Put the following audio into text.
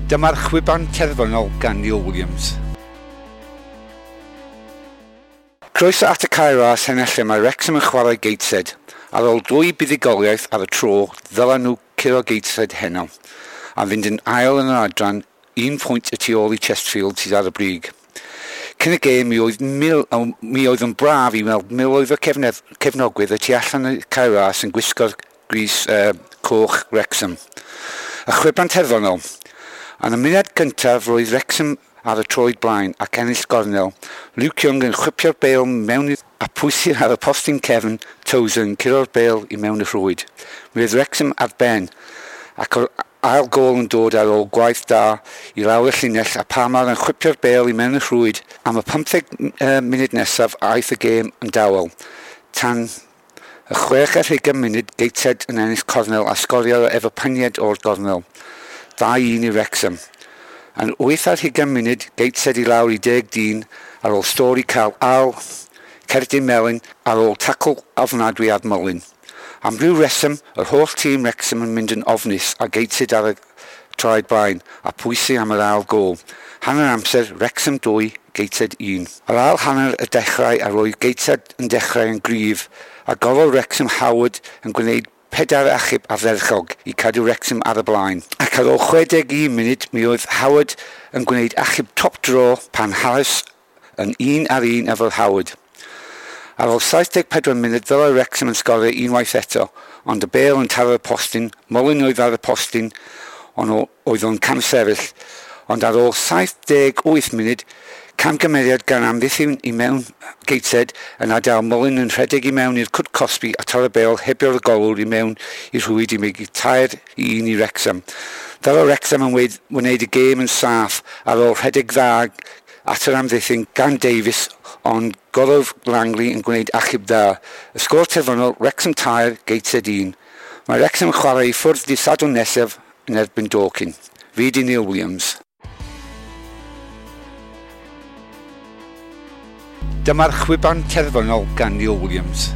Dyma'r chwiban terfynol gan Neil Williams. Croeso at y Cae Ras heno lle mae Wrexham yn chwarae Gateshead. Ar ôl dwy buddugoliaeth ar y tro, ddylen nhw curo Gateshead heno, a fynd yn ail yn yr adran, un pwynt y tu ôl i Chesterfield sydd ar y brig. Cyn y gêm, mi oedd, mil, mi oedd yn braf i weld miloedd o cefnogwyr y tu allan y Cae Ras yn gwisgo'r grys coch Wrexham. Y chwiban terfynol. Yn y munud gyntaf, roedd Wrexham ar y troed blaen ac ennill gornel. Luke Young yn chwipio'r bêl mewn a pwysir ar y postyn cefn, Tozer yn curo'r bêl i mewn y rhwyd. Mi oedd Wrexham ar ben, ac o'r ail gôl yn dod ar ôl gwaith da i lawr y llinell a Palmer yn chwipio'r bêl i mewn y rhwyd. Am y 15 munud nesaf aeth y gêm yn dawel. Tan y 26 munud, Gateshead yn ennill cornel a sgorio efo peniad o'r gornel. 2-1 i Wrexham. Yn 28 munud, Gateshead i lawr i 10 dyn ar ôl Storey cael ail cerdyn melyn ar ôl tacl ofnadwy ar Mullin. Am ryw reswm, yr holl tîm Wrexham yn mynd yn ofnus a Gateshead ar y traed blaen a pwysu am yr ail gôl. Hanner amser, Wrexham 2, Gateshead 1. Yr ail hanner y dechrau a roedd Gateshead yn dechrau yn gryf a gofal Wrexham Howard yn gwneud pedair achub ardderchog i cadw Wrexham ar y blaen. Ac ar ôl 61 munud, mi oedd Howard yn gwneud achub top draw pan Harris yn un ar un efo'r Howard. Ar ôl 74 munud, ddylai Wrexham yn sgorio unwaith eto, ond y bêl yn taro'r postyn, Mullin oedd ar y postyn, ond oedd o'n camsefyll. Ond ar ôl 78 munud, camgymeriad gan amddiffyn i mewn Gateshead yn adael Mullin yn rhedeg i mewn i'r cwt cosbi a taro'r bêl hebio'r golwr i mewn i'r rhwyd i mynd 3-1 i Wrexham. Ddylai Wrexham yn wneud y gêm yn saff ar ôl rhedeg dda at yr amddiffyn gan Davies, ond golwr Langley yn gwneud achub dda. Y sgôr terfynol, Wrexham 3, Gateshead 1. Mae Wrexham yn chwarae i ffwrdd dydd Sadwrn nesaf yn erbyn Dorking. Fi di Neil Williams. Dyma'r chwiban terfynol gan Neil Williams.